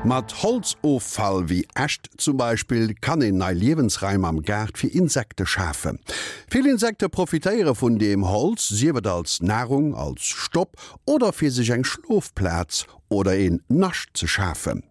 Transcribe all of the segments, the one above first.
Mat Holzoffall, wéi Äscht zum Beispill, kann een nei Liewensraim am Gaart fir Insekte schafen. Vill Insekte profitéiere vun deem Holz, sief et als Narung, als Stopp oder fir sech eng Schlofplaz oder een Nascht ze schafen.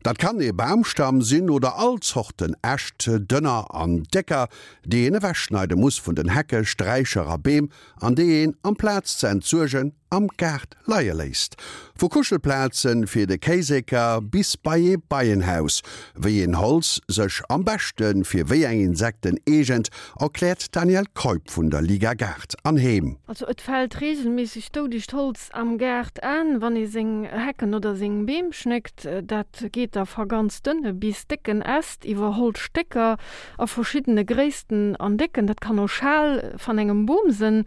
Dat kann ee Bamstamm sinn oder all Zorten Äscht, dënner an décker, déi een ewechschneide muss vun den Hecke, Sträicher a Beem an déi een, amplaz ze entsuergen, am Gaart leie léisst. Vu Kuschelplaze fir de Kéiseker bis bei ee Beienhaus. Wéi een Holz sech am beschte fir wéi eng Insekten eegent, erkläert d'Danièle Keup vun der Liga Gaart an Heem. Also et fält reegelméisseg doudegt Holz am Gaart an, wann ee seng Hecken oder seng Beem schnéckt. Dat geet da va ganz dënne bis décken Äst iwwer Holzstécker a verschiddene Gréissten an Décken. Dat kann och Schal van engem Boom sënn.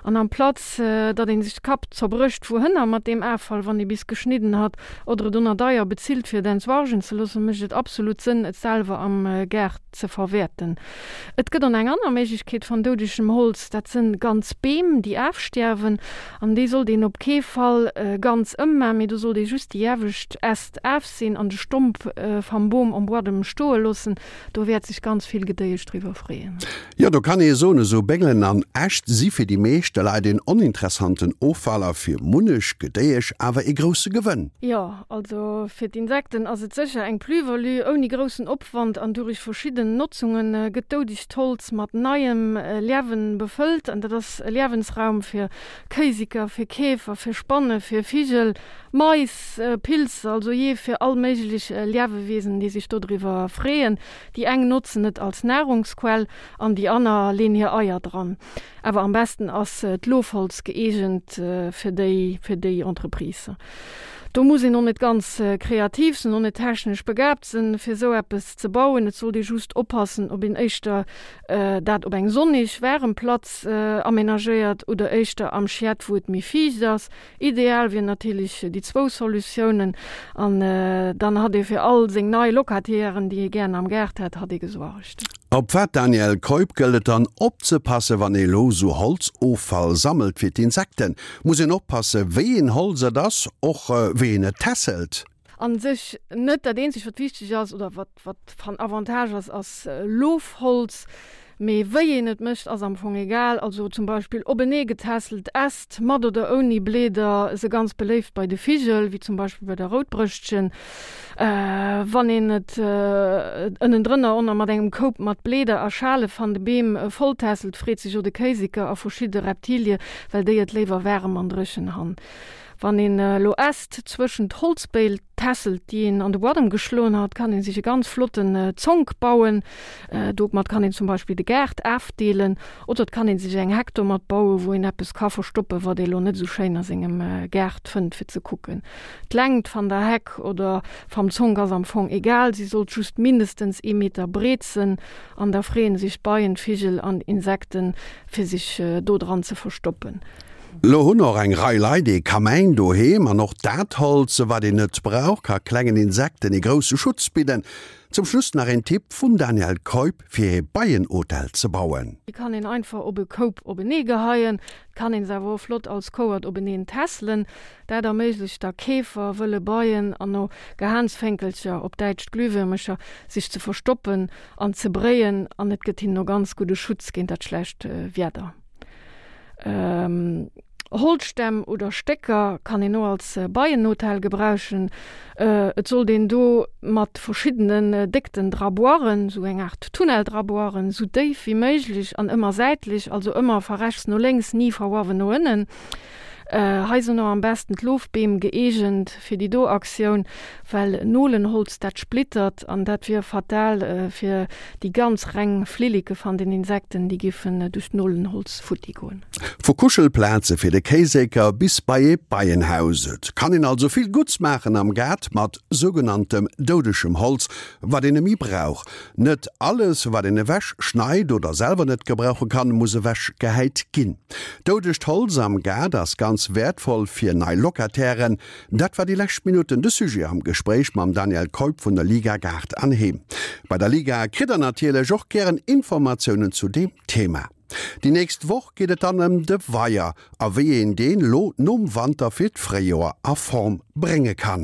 An amplatz datt een sech de Kapp zerbrécht wouhënner mat deem Affall, wann ee bis geschnidden hat, oder et oner deier bezilt fir et entsuargen ze loossen, mécht et absolut Sënn et selwer am Gaart ze verwäerten. Et gëtt on eng anner Méiglechkeet van doudegem Holz, dat sënn ganz Beem déi aafstiärwen, an déi sollt een op kee Fall ganz ëmmaan, mee do sollt ee just déi iewescht Äst aafseen an de Stomp vam Boom am Buadem stoe loossen. Do wäert sech ganz vill Gedéiesch driwwer freeën. Jo, do kann ee soen, esou Béngelen an Äscht si fir déi meeschte Leit een oninteressanten Offall a fir munnech Gedéiesch awer ee grousse Gewënn. Jo, also fir d'Insekten ass et sécher eng Plus-value. Ouni groussen Opwand an durich verschidden Notzunge gëtt doudegt Holz mat neiem Liewen befëllt an dat ass e Liewensraum fir Kéisiker, fir Käfer, fir Spanne, fir Vigel, Mais, Pilzer, also jee fir all méiglech Liewewesen, déi sech dodriwwer freeën. Déi eng notzen et als Nahrungsquell an déi anner leen hir Eier dran. Awer am besten ass d'Lofholz gëeegent fir déi fir déi Entreprise. Do muss een och net ganz kreativ sinn, och net technesch begaabt sinn, fir esou eppes ze bauen. Et sollt ee just oppassen, ob een éischter dat op eng sonnig, waarem Platz amenagéiert oder éischter am Schiet, wou et méi fiicht ass. Ideal wier natierlech déi zwou Solutiounen an dann hatt ee fir all seng nei Locatairen, déi ee gären am Gaart hätt, hatt ee gesuergt. Op wat, Danièle Keup, gëllt et dann opzepassen, wann ee lo sou Holzoffall sammelt fir d'Insekten? Muss een oppassen, wéi een Holz et ass, och wéi een et tässelt? An sech net. Dat eenzegt wat wichteg ass oder wat wat van Avantage ass, ass Lofholz. Mee wéi een et mécht ass am Fong egal. Also zum Beispill openee getässelt Äst, mat oder ouni Bleeder, se ganz beléift bei de Vigel, wéi zum Beispill bei der Routbrëschtchen. Wann een et ënnendrënner onner mat engem Koup mat Bleeder a Schale van de Beem volltässelt, freet sech o de Kéiseker a verschidde Reptilie, well déi et léiwer waarem an dréchen han. Wann een elo Äst zwëschent Holzbéil tässelt, déi een an de Buadem geschloen hat, kann een sech e ganz flotten Zonk bauen. Domat kann een zum Beispill de Gaart aafdeelen oder et kann een sech eng Heck domat bauen, wou een eppes ka verstoppen, wat ee lo net esou schéin a sengem Gaart fënnt fir ze kucken. D'Längt van der Heck oder vam Zonk ass am Fong egal, si sollt just mindestens ee Meter breet sen an da freeën sech d'Beien, d'Vigel an Insekten fir sech do dran ze verstoppen. Lo hunn och eng Rei Leit ee Kamäin doheem an och dat Holz, wat een net brauch, ka klengen Insekten ee grousse Schutz bidden. Zum Schluss nach een Tipp vum Danièle Keup fir ee Beienhotel ze bauen. Déi kann een einfach op e Koup openee geheien, et kann een se awer och flott als Kouert openeen tässelen. Dat erméiglecht da Käfer, wëlle Beien an och Gehaansfénkelcher, op Däitsch Glühwürmecher, sech ze verstoppen an ze bréien an et gëtt hinnen och ganz gudde Schutz géint dat schlecht Wieder. Holzstämm oder Stécker kann een och als Beienhotel gebrauchen. Et sollt een do mat verschiddenen Déckten dra boiren, sou eng Art Tunnel dra boiren, sou déif wéi méiglech an ëmmer säitlech, also ëmmer va rechts no lénks, ni va uawen no ënnen. Hei sinn och am besten d'Lofbeem gëeegent fir déi do Aktioun, well Nolenholz dat splittert an dat wier fatal fir déi ganz reng Flilleke van den Insekten, déi giffen duerch d'Nolenholz futti goen. Vu Kuschelplaze fir de Kéisécker bis bei ee Beienhaus, et kann een also vill Gutts maachen am Gaart mat sougenanntem doudegem Holz, wat een nemme brauch. Net alles, wat een ewech schneit oder selwer net gebrauche kann, muss ewech gehäit ginn. Doudegt Holz am Gaart ass ganz wäertvoll fir nei Locatairen. Dat war déi lescht Minutten de Sujet am Gespréich mam Daniel Keup vun der Liga Gaart an Heem. Bei der Liga kritt der natierlech och gären Informatiounen zu deem Thema. Déi nächst Woch geet et dann ëm de Weier a wéi een deen lo nom Wanter fir d'Fréijoer a Form brénge kann.